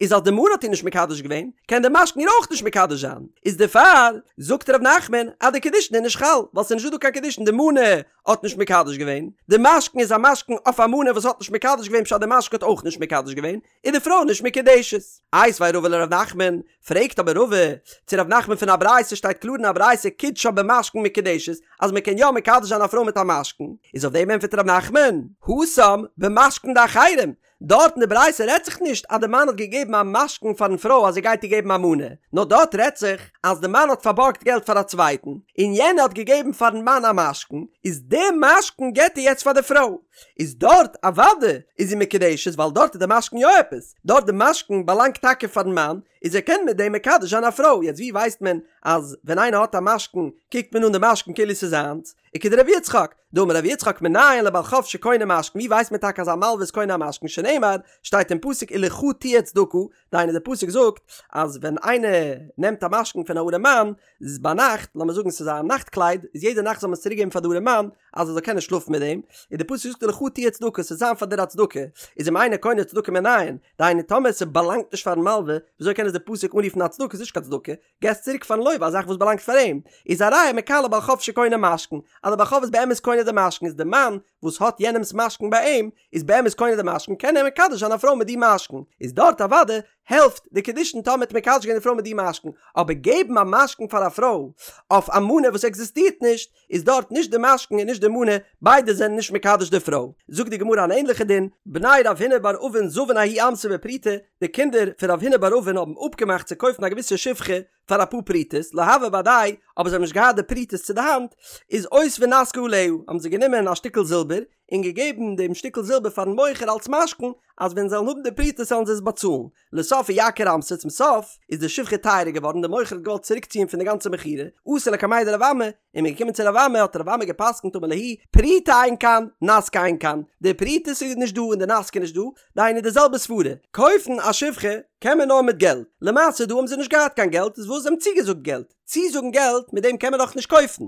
איז אז די מנה האט איר נישט מקדש געווען, קען די משכון איר אויך נישט מקדש זיין, איז דערפאר זאגט ר' נחמן אז די קידושין איז נישט חל, ווייל ס'איז נישט דא דא קיין קידושין, די מנה האט נישט מקדש געווען, די משכון איז א משכון אויף א מנה וואס האט נישט מקדש געווען פשט די משכון האט אויך נישט מקדש געווען, איז די פרוי נישט מקודשת. איתיביה רבא לר' נחמן, פרעגט אבער רבא צו ר' נחמן פון א ברייתא שטייט קלאר אין א ברייתא קידשה במשכון מקודשת אז מען קען יא מקדש זיין א פרוי מיט א משכון, איז אויף דעם ענטפערט ר' נחמן, התם במשכון דאחרים, דארט אין די ברייתא רעדט זיך נישט אז די מאן האט געגעבן א משכון פארן פרוי אז ער גייט איר געבן א מנה, נאר דארט רעדט זיך אז די מאן האט פארבארגט געלט פאר א צווייטן, און יענער האט געגעבן פארן מאן א משכון, איז די משכון געבט ער יעצט פאר די פרוי, איז דארט אוודאי איז זי מקודשת ווייל דארט איז די משכון יא עפעס, דארט די משכון באלאנגט טאקע פארן מאן, איז ער קען מיט דעם מקדש זיין א פרוי, יעצט ווי ווייסט מען אז ווען איינער האט א משכון קוקט מען אן די משכון כאילו ס'איז זיינס, וכדרב יצחק, דאמר רב יצחק מנין לבעל חוב שקונה משכון, ווי ווייסט מען טאקע אז א מלווה איז קונה א משכון, שנאמר, שטייט אין פסוק ולך תהיה צדקה, דהיינו די פסוק זאגט אז ווען איינער נעמט א משכון פון א ארעם מאן, איז ביינאכט, לאמיר זאגן ס'איז א נאכט קלייד, איז יעדע נאכט זאל מען עס צוריק געבן פאר די ארעם מאן, אז ער זאל קענען שלאפן מיט דעם, און די פסוק זאגט ולך תהיה צדקה, ס'זאל זיין פאר דיר א צדקה, איז אם אינו קונה צדקה מנין, דהיינו טאמער ס'באלאנגט נישט פארן מלווה, וויאזוי קען עס די פסוק אנרופן א צדקה, ס'איז נישט קיין צדקה, געסט צוריק פארן לוה א זאך וואס באלאנגט פאר אים, איז א ראיה מכאן לבעל חוב שקונה משכון, אז דער בעל חוב איז באמת קונה די משכון איז די מאן וואס האט יענעמס משכון ביי אים איז באמת קונה די משכון קען ער מקדש זיין א פרוי מיט די משכון, איז דארט אוודאי העלפט די קידושין טאמער האט מקדש געווען די פרוי מיט די משכון, אבער געבן א משכון פאר א פרוי אויף א מנה וואס עקזיסטירט נישט, איז דארט נישט די משכון און נישט די מנה, ביידע זענען נישט מקדש די פרוי. זאגט די גמרא אן ענליכע דין, בני רב הונא בר אבין זבון ההיא אמתא בפרוטה, די קינדער פון רב הונא בר אבין האבן אפגעמאכט צו קויפן א געוויסע שפחה פאר אפאר פרוטות, לא הוה בהדייהו, אבער זיי האבן נישט געהאט די פרוטות צו די האנט, איז אותבו נסכא עליה, האבן זיי גענומען א שטיקל זילבער, און געגעבן דעם שטיקל זילבער פארן מוכר אלס משכון, אז ווען זיי וועלן האבן די פרוטות זאלן זיי עס באצאלן. לסוף אייקר אמתא, צום סוף איז די שפחה טייערער געווארן, דער מוכר האט געוואלט צוריקציען פון די גאנצע מכירה, אתו לקמיה דרב אמי, און מ'איז געקומען צו רב אמי האט רב אמי גע'פסק'נט אמר להו, פרוטה אין כאן, נסכא אין כאן, די פרוטות איז נישט דא און די נסכא איז נישט דא, דהיינו די זעלבע סברה, קויפן א שפחה קען מען נאר מיט געלט, למעשה דא האבן זיי נישט געהאט קיין געלט איז וואס זיי האבן צוגעזאגט געלט, צוזאגן געלט מיט דעם קען מען דאך נישט קויפן,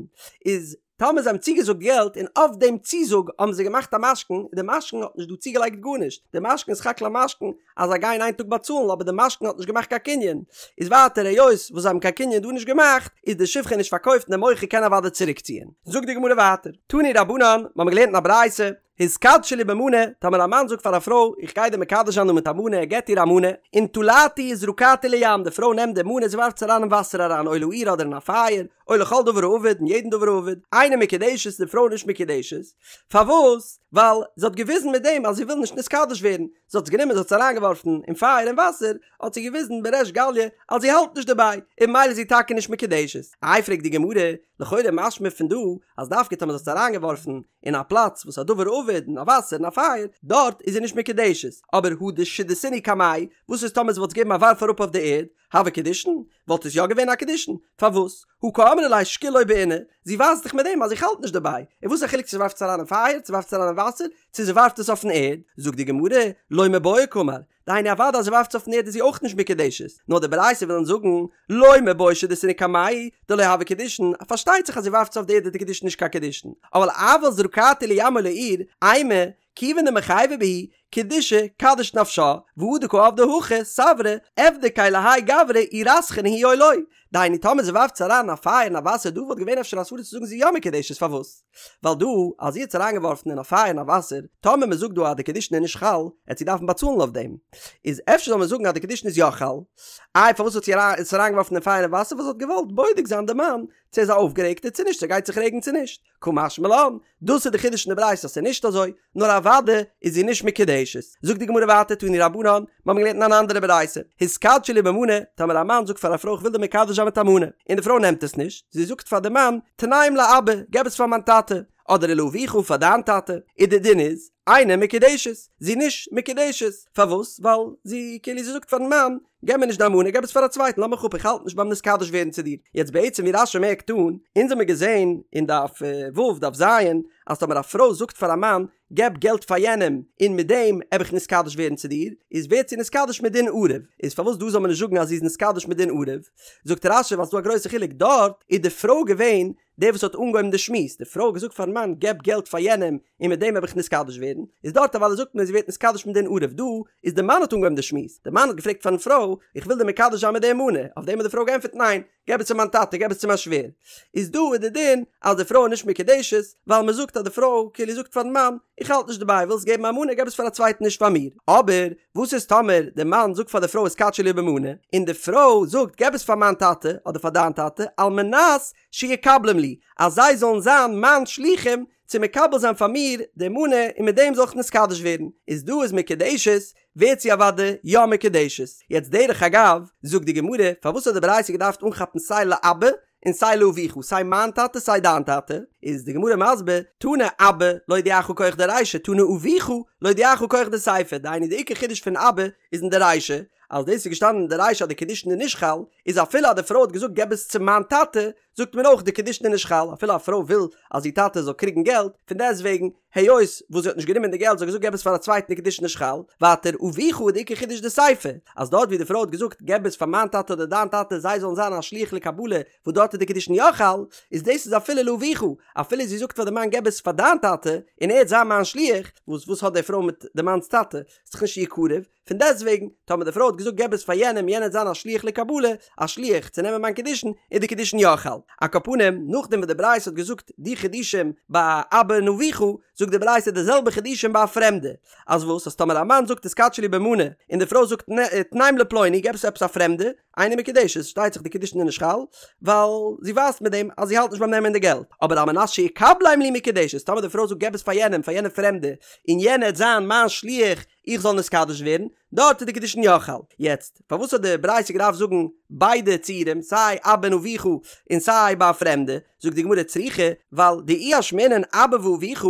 איז טאמער זיי האבן צוגעזאגט געלט און אויף דעם צוזאג האבן זיי געמאכט א משכון, און די משכון האט נישט דא צוגעלייגט גארנישט, די משכון איז סך הכל א משכון אז זיי גייען איין טאג באצאלן אבער די משכון האט נישט געמאכט קיין קנין, איז ווייטער היות וואס זיי האבן קיין קנין דא נישט געמאכט איז די שפחה נישט פארקויפט און די מוכר קען אוודאי צוריקציען. זאגט די גמרא ווייטער, תנו רבנן, מ'האמיר געלערנט אין א ברייתא, התקדשי לי במנה, טאמער א מאן זאגט פאר א פרוי, איך גיי דיר מקדש זיין דא מיט א מנה, ער געבט איר א מנה, ונטלתהו וזרקתהו לים, די פרוי נעמט די מנה, זי ווארפט עס אריין אין וואסער אריין, או לאור אדער אין א פייער, או לכל דבר האבד, אין יעדן דבר האבד, אינה מקודשת, די פרוי איז נישט מקודשת, פארוואס? ווייל זי האט געוויזן מיט דעם אז זי וויל נישט נתקדש ווערן, זי האט עס גענומען זי האט עס אריינגעווארפן אין פייער און וואסער, האט זי געוויזן בריש גליא אז זי האלט נישט דערביי, און ממילא איז זי טאקע נישט מקודשת. איי פרעגט די גמרא, לכאורה משמע פון דא אז דווקא טאמער זי האט עס אריינגעווארפן אין א פלאץ וואס א דבר האבד אין א וואסער אין א פייער, דארט איז זי נישט מקודשת, אבער הא דשדיתינהו קמיה, וואס איז טאמער זי וואלט עס געגעבן א ווארף אראפ אויף די ערד, הוה קידושין? וואלט עס יא געווען א קידושין? פארוואס? הא קאמרה ליה שקיל לא בעינא, זי ווייזט דאך מיט דעם אז איך האלט נישט דערביי, און וואס איז א חילוק צו זי ווארפט עס אריין אין פייער, צו ווארפט עס אריין אין וואסער, צו זי ווארפט עס אויפן ערד, זאגט די גמרא, לא מיבעיא קאמר, דהיינו אוודאי אז זי ווארפט עס אויפן ערד איז זי אויך נישט מקודשת, נאר די ברייתא וויל אונז זאגן, לא מיבעיא שדיתינהו קמיה, דלא הוה קידושין, פארשטייט זיך אז זי ווארפט עס אויף די ערד איז די קידושין נישט קיין קידושין, אבל אבל זרקתהו לים או לאור, אימא, כיוון דמיחייבא בהו, קידושי קדיש נפשה, והא דקא עבדא הכי, סברא, אבדקיה להאי גברא אי רתחנא הוא או לא. דהיינו טאמער זי ווארפט עס אריין אין א פייער אין א וואסער דא וואלט געווען אפשר א סברא צו זאגן זי איז יא מקודשת פארוואס? ווייל דא אז זי האט עס אריינגעווארפן אין א פייער אין א וואסער טאמער מען זאגט דא אז די קידושין איז נישט חל עט זי דארפן באצאלן אויף דעם איז אפשר זאל מען זאגן אז די קידושין איז יא חל איי פארוואס האט זי עס אריינגעווארפן אין פייער אין וואסער ווייל זי האט געוואלט בודק זיין די מאן צו ער איז א אויפגערעגטער צו נישט צו ער גייט זיך רעגן צו נישט קא משמע לן, דאס איז די חידוש אין די ברייתא אז ס'איז נישט אזוי, נאר אוודאי איז זי נישט מקודשת. זאגט די גמרא ווייטער תנו רבנן, מיר האבן געלערנט אין אן אנדערע ברייתא, התקדשי לי במנה, טאמער א מאן זאגט פאר א פרוי איך וויל דיר מקדש זיין מיט א מנה, און די פרוי נעמט עס נישט, זי זאגט פאר די מאן, תנם לאבא, געב עס פאר מיין טאטע, אדער ולאביך פאר דיין טאטע, און די דין איז, אינה מקודשת, זי איז נישט מקודשת, פארוואס? ווייל זי כאילו זי זאגט פארן מאן, געב מיר נישט דיין מנה, געב עס פאר א צווייטן, לאז מיך אפ, איך האלט נישט ביים נתקדש ווערן צו דיר. יעצט בעצם ווי רש"י מערקט אן, אונז האמיר געזען אין דף ו' דף ז', אז טאמער א פרוי זאגט פאר א מאן, געב געלט פאר יענעם, און מיט דעם עב איך נתקדש ווערן צו דיר, איז ווערט זי נתקדש מדין ערב. איז פארוואס דא זאל מען נישט זאגן אז זי איז נתקדש מדין ערב? זאגט רש"י ווייל ס'דא א גרויסע חילוק, דארט איז די פרוי געווען דער וואס האט אנגעהויבן די שמועס, די פרוי האט געזאגט פארן מאן געב געלט פאר יענעם און מיט דעם וועל איך נתקדש ווערן, איז דארט אוודאי זאגט מען זי ווערט נתקדש מדין ערב, דא איז די מאן האט אנגעהויבן די שמועס, די מאן האט געפרעגט פארן פרוי איך וויל דיר מקדש זיין מיט די מנה, אויף דעם האט די פרוי געענטפערט ניין, געב עס צו מיין טאטע, געב עס צו מיין שווער, איז דא איז די דין אז די פרוי איז נישט מקודשת, ווייל מען זאגט אז די פרוי כאילו זאגט פארן מאן איך האלט נישט דערביי, ווילסט געבן א מנה געב עס פאר א צווייטן נישט פאר מיר, אבער וואס איז טאמער די מאן זאגט פאר די פרוי התקדשי לי במנה, און די פרוי זאגט געב עס פאר מיין טאטע אדער פאר דיין טאטע על מנת שיקבלום לי, אז זיי זאלן זיין מיין שלוחים צו מקבל זיין פאר מיר די מנה און מיט דעם זאל איך נתקדש ווערן, איז דא איז מקודשת, ווערט זי אוודאי יא מקודשת. יעצט דרך אגב, זאגט די גמרא, פארוואס האט די ברייתא געדארפט אנכאפן סיי לאבא און סיי לאביך, סיי מיין טאטע סיי דיין טאטע, איז די גמרא מסביר, תנא אבא להודיעך כח דרישא, תנא אביך להודיעך כח דסיפא, דהיינו די עיקר חידוש פון אבא איז אין די רישא, אז דאס איז געשטאנען אין די רישא אז די קידושין איז נישט חל, איז אפילו אז די פרוי האט געזאגט געב עס צו מיין טאטע, זאגט מען אויך די קידושין איז נישט חל, אפילו א פרוי וויל אז איר טאטע זאל קריגן געלט, פון דעסט וועגן, היות וואס זי האט נישט גענומען די געלט, זי האט געזאגט געב עס פאר א צווייטן די קידושין נישט חל, ווייטער אביך איז די עיקר חידוש די סיפא, אז דארט ווי די פרוי האט געזאגט געב עס פאר מיין טאטע אדער דיין טאטע זיי זאלן זיין א שליח לקבלה, וואס דארט איז די קידושין יא חל, איז דאס איז אפילו לאביך, אפילו זי זאגט פאר די מאן געב עס פאר דיין טאטע, און ער וועט זיין מיין שליח, וואס וואס האט די פרוי מיט די מאנ'ס טאטע, ס'איז דאך נישט איר קרוב, פון דעסטוועגן, טאמער די פרוי האט געזאגט געב עס פאר יענעם, יענער וועט זיין א שליח לקבלה, א שליח צו נעמען מיין קידושין, איז די קידושין יא חל. על כל פנים, נאכדעם וואס די ברייתא האט געזאגט די חידושים ביי אבא און אביך, זאגט די ברייתא די זעלבע חידושים ביי א פרעמדע. אז וואס? אז טאמער א מאן זאגט התקדשי לי במנה, און די פרוי זאגט תנם לפלוני, געב עס צו עפעס א פרעמדע, אינה מקודשת, פארשטייט זיך די קידושין איז נישט חל, ווייל זי ווייזט מיט דעם אז זי האלט נישט ביים נעמען די געלט. אבער על מנת שיקבלם לי מקודשת, טאמער די פרוי זאגט געב עס פאר יענעם, פאר יענע פרעמדע, און יענער וועט זיין מיין שליח, איך זאל נתקדש ווערן, דארט איז די קידושין יא חל. יעצט, פארוואס האט די ברייתא געדארפט זאגן ביידע ציורים, סיי אבא און אביך און סיי ביי א פרעמדע? זאגט די גמרא צריכא, ווייל דאי אשמעינן אבא ואביך,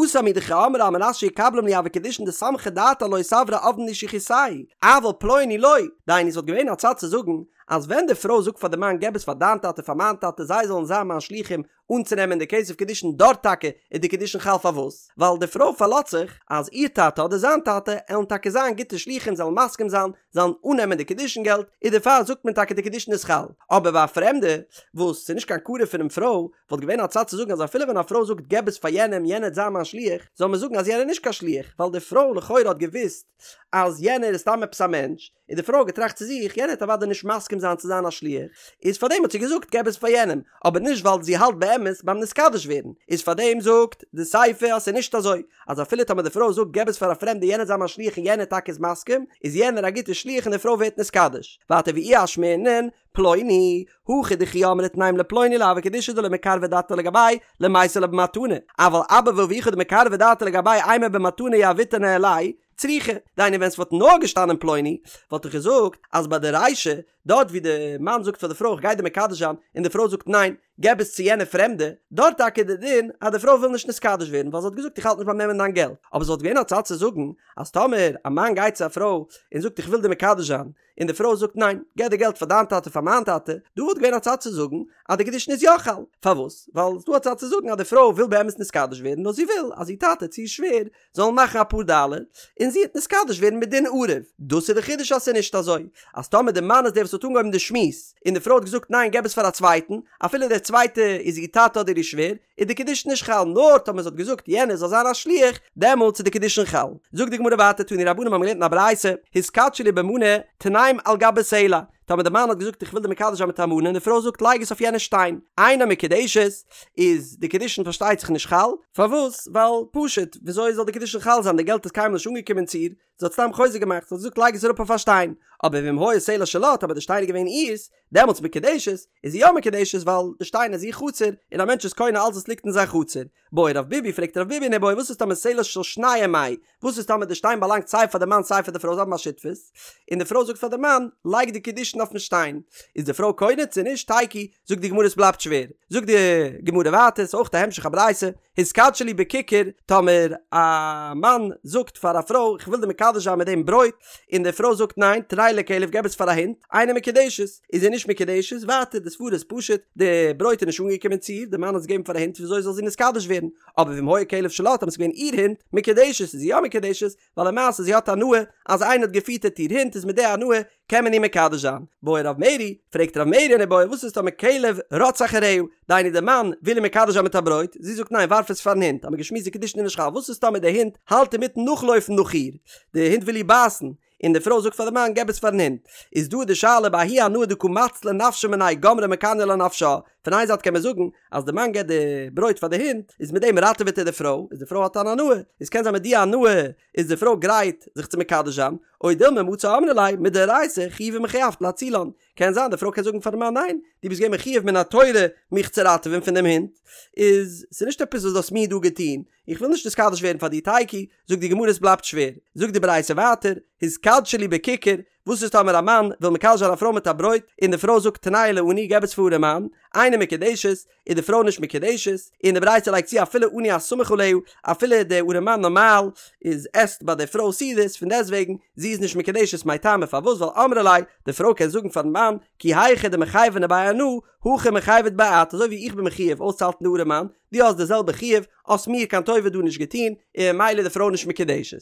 התם הוא דקאמרה על מנת שיקבלם לי הוו קידושין דסמכה דעתה עילואי סברא עבדין לי שליחותייהו, אבל פלוני לא, דהיינו ס'וואלט געווען א צד צו זאגן אז ווען די פרוי זאגט פאר די מאן געב עס פאר דיין טאטע פאר מיין טאטע זיי זאלן זיין מיין שלוחים אנצונעמען די כסף קידושין דארט טאקע איז די קידושין חל פארוואס? ווייל די פרוי פארלאזט זיך אז איר טאטע אדער זיין טאטע עלן טאקע זיין גוטע שלוחים זיי עלן מסכים זיין זיי זאלן אננעמען די קידושין געלט, איז דערפאר זאגט מען טאקע די קידושין איז חל, אבער ביי א פרעמדע וואס ס'איז נישט קיין קרוב פונעם פרוי, וואלט געווען א צד צו זאגן אז אפילו ווען א פרוי זאגט געב עס פאר יענעם יענער וועט זיין מיין שליח, זאל מען זאגן אז יענער איז נישט קיין שליח, ווייל די פרוי לכאורה האט געוואוסט אז יענער איז סתם עפעס א מענטש, און די פרוי האט געטראכט צו זיך יענער וועט אוודאי נישט מסכים זיין צו זיין א שליח, איז פארדעם האט זי געזאגט געב עס פאר יענעם, אבער נישט ווייל זי האלט באמת ביים נתקדש ווערן, איז פארדעם זאגט די סיפא אז ס'איז נישט אזוי, אז אפילו טאמער די פרוי זאגט געב עס פאר א פרעמדע יענער זיי מיין שליח און יענער טאקע איז מסכים, איז יענער א גוטער שליח און די פרוי ווערט נתקדש. ווייטער ואי אשמעינן, פלוני, הכא דכי אמרה תנם לפלוני לא הוו קידושי דלא מקרבא דעתה לגביה למיתי לה במתנה, אבל אבא ואבוך דמקרבי דעתייהו לגבייהו אימא במתנה יהביתו ניהלייהו, צריכא, דהיינו ווען ס'וואלט נאר געשטאנען פלוני, וואלט איך געזאגט אז ביי די רישא, דארט ווי די מאן זאגט פאר די פרוי איך גיי דיר מקדש זיין, און די פרוי זאגט ניין, געב עס צו יענע פרעמדע, דארט טאקע איז די דין אז די פרוי וויל נישט נתקדש ווערן ווייל זי האט געזאגט איך האלט נישט ביים נעמען דיין געלט, אבער ס'וואלט געווען א צד צו זאגן אז טאמער א מאן גייט צו א פרוי און זאגט איך וויל דיר מקדש זיין, און די פרוי זאגט ניין, געב די געלט פאר דיין טאטע פאר מיין טאטע, דא וואלט געווען א צד צו זאגן אז די קידושין איז יא חל, פארוואס? ווייל ס'דא א צד צו זאגן אז די פרוי וויל באמת נתקדש ווערן נאר זי וויל אז איר טאטע צו איר שווער זאלן מאכן אפאר דאלער און זי וועט נתקדש ווערן מדין ערב, דאס איז די חידוש אז ס'איז נישט אזוי אז טאמער די מאן איז דער וואס האט אנגעהויבן די שמועס און די פרוי האט געזאגט ניין געב עס פאר א צווייטן אפילו דער צווייטע איז איר טאטע אדער איר שווער, איז די קידושין נישט חל נאר טאמער זי האט געזאגט יענער זאל זיין א שליח דעמאלטס איז די קידושין חל. זאגט די גמרא ווייטער תנו רבנן האבן געלערנט אין א ברייתא התקדשי לי במנה תנם על גבי סלע טאמער די מאן האט געזאגט איך וויל דיר מקדש זיין מיט א מנה און די פרוי זאגט לייג עס אויף יענע שטיין אינה מקודשת איז די קידושין פארשטייט זיך נישט חל פארוואס ווייל פשוט וויאזוי זאל די קידושין חל זיין די געלט איז קיינמאל נישט אנגעקומען צו איר זי האט סתם חוזק געמאכט, זי האט געזאגט לייג עס אראפ אויף א שטיין, אבער ואם היה סלע שלה, טאמער די שטיין איז געווען אירס, דעמאלטס מקודשת, איז זי יא מקודשת ווייל די שטיין איז איר חצר, און א מענטש איז קונה אלס וואס ליגט אין זיין חצר. בעי רב ביבי, פרעגט רב ביבי אן איבעיא, וואס איז טאמער סלע של שניהם מאי, וואס איז טאמער די שטיין באלאנגט סיי פאר די מאן סיי פאר די פרוי זיי האבן א שותפות, און די פרוי זאגט פאר די מאן, לייג די קידושין אויפן שטיין, איז די פרוי קונה צו נישט, תיקו, זאגט די גמרא עס בלייבט שווער, זאגט די גמרא ווייטער, ס'איז אויך א המשך א ברייתא, התקדשי לי בכיכר, טאמער א מאן זאגט פאר א פרוי איך וויל דיר מקדש זיין מיט דעם ברויט, און די פרוי זאגט ניין, תנהו לכלב געב עס פאר א הונט, אינה מקודשת, איז זי נישט מקודשת, ווייטער די סברא איז פשוט, די ברויט איז נישט אנגעקומען צו איר, די מאן האט עס געגעבן פאר א הונט וויאזוי זאל זי נתקדש ווערן, אבער ואם היה כלב שלה, טאמער עס איז געווען איר הונט, מקודשת, איז זי יא מקודשת, ווייל למעשה זי האט הנאה אז איינער האט געפיטערט איר הונט איז מיט די הנאה קען מען איר מקדש זיין. בעי רב מרי, פרעגט רב מרי אן איבעיא וואס איז טאמער כלב רץ אחריה, דהיינו די מאן וויל איר מקדש זיין מיט א ברויט, זי זאגט ניין ווארף עס פארן הונט, האמיר געשמועסט די קידושין איז נישט חל, וואס איז טאמער די הונט האלט אינמיטן נאכלויפן נאך איר, די הונט וויל איר בייסן, און די פרוי זאגט פאר די מאן געב עס פארן הונט, איז דא די שאלה בההיא הנאה דקא מצלה נפשה מיניה גמרה מקניא לה נפשה, פון איין זייט קען מען זאגן אז די מאן געבט די ברויט פאר די הונט איז מיט דעם ראטעוועט ער די פרוי, איז די פרוי האט אן הנאה, איז קען זיין מיט די הנאה איז די פרוי גרייט זיך צו מקדש זיין, או דילמא מצי אמרה ליה מדאורייתא חיובי מחויבת לאצולן, קען זיין די פרוי קען זאגן פארן מאן ניין, דו ביסט געווען מחויב מן התורה מיך צו ראטעווען פון דעם הונט, איז ס'נישט עפעס וואס דו האסט מיר דא געטון, איך וויל נישט נתקדש ווערן פאר דיר תיקו, זאגט די גמרא עס בלייבט שווער, זאגט די ברייתא ווייטער, התקדשי לי בכיכר, וואס איז טאמער א מאן וויל מקדש זיין א פרוי מיט א ברויט, און די פרוי זאגט תנהו לעני געב עס פאר ארעמאן, אינה מקודשת, איז די פרוי נישט מקודשת, און די ברייתא לייגט צו אפילו עני הסמוך עליה, אפילו די ארעמאן נארמאל איז עסט ביי די פרוי סעודות, פון דעסטוועגן זי איז נישט מקודשת מאי טעמא פארוואס ווייל אמרה ליה, די פרוי קען זאגן פארן מאן, כי היכי דמחייבנא ביה אנא, הכי מיחייבת ביה את, אזוי ווי איך בין מחויב אויסצוהאלטן די ארעמאן, דו האסט די זעלבע חיוב, האסט מיר קיין טובה דא נישט געטון, און ממילא איז די פרוי נישט מקודשת.